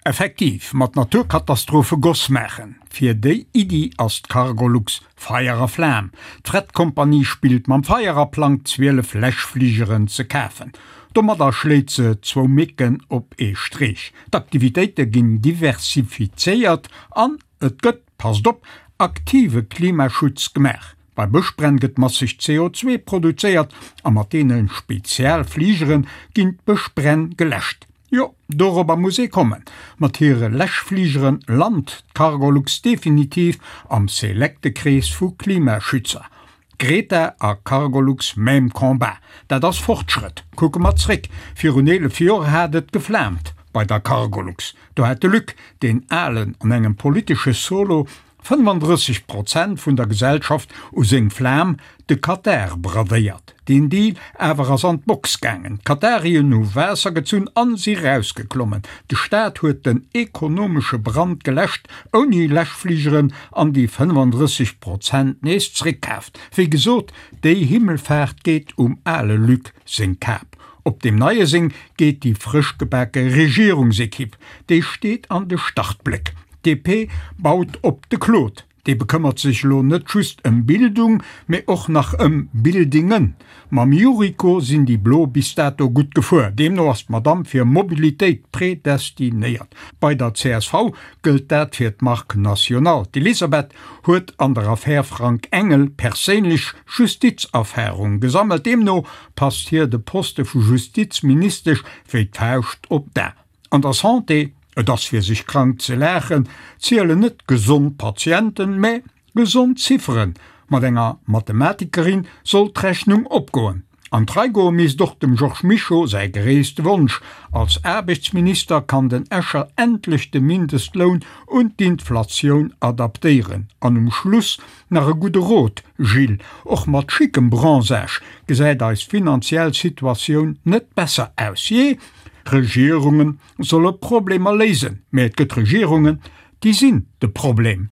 Effektiv, mat Naturkatastrophe Goss maachen, fir déi Iddi ass d'Cargolux Feier a Flam. D'Fretcompagnie spillt mam Feier a plangt 12 Läschfligeren ze kafen. Domadder schléit se zwou Mécken op ee Streech, d'Aktivitéite ginn diversifizéiert an et gëtt, passt op, aktive Klimaschutz gemaach. Bei Bëschbränn gëtt masseg CO2 produzéiert a mat deene Spezialfligere ginn d'Bëschbränn geläscht. Jo, dorobber muss ee kommen. Mat hire Läschfligere lant d'Cargolux definitiv am selekte Krees vu Klimaschützer. Greta a Cargolux même combat. Dat ass Fortschrëtt. Kucke mer zréck, Virun 11 Joer hat et geflaamt bei der Cargolux. Do hat de Luc, deen Alen, an engem politesche Solo 35 Prozent vun der Gesellschaft u seng Flam, de Katar, bradéiert. Deen Deal awer ass an d'Box gaangen. D'Katarien hu Waasser gezunn an si rausgeklommen. De Staat huet den ekonomesche Brand geläscht, ouni Läschfligeren, an déi 35 Prozent nees zréckkaaft. Wéi gesot, déi Himmelfaart geet um ale Luc seng Kap. Op deem neie seng geet déi frëschgebake Regierungsekipp. Déi steet an de Startbléck. D'DP baut op de Claude. Dee bekëmmert sech elo net just ëm Bildung, mee och nach ëm Buildingen. Mam Yuriko sinn déi Blo bis dato gutt gefuer. Deemno ass d'Madamm fir Mobilitéit predestinéiert. Bei der csv gëllt dat fir d'Marque nationale. D'Elisabeth huet an der Affär Frank Engel perséinlech Justizerfarung gesammelt. Deemno passt hir de Poste vu Justizministesch wéi d'Fauscht op d'A. An der Santé, et ass fir sech krank ze laachen, zielen net gesond Patienten, mä gesond Zifferen. Mat enger Mathematikerin soll d'Rechnung opgoen. An d'Rei goe misst och dem Georges Mischo säi gréisste Wonsch, Als Aarbechtsminister kann den Escher endlech de Mindestloun un d'Inflatioun adaptéieren. An um Schluss nach e gudde Rot, Gilles, och mat schickem Bronzage gesäit eis finanziell Situatioun net besser aus. Jee, Regierunge solle Problemer léisen, mä et gëtt Regierungen, déi sinn de Problem.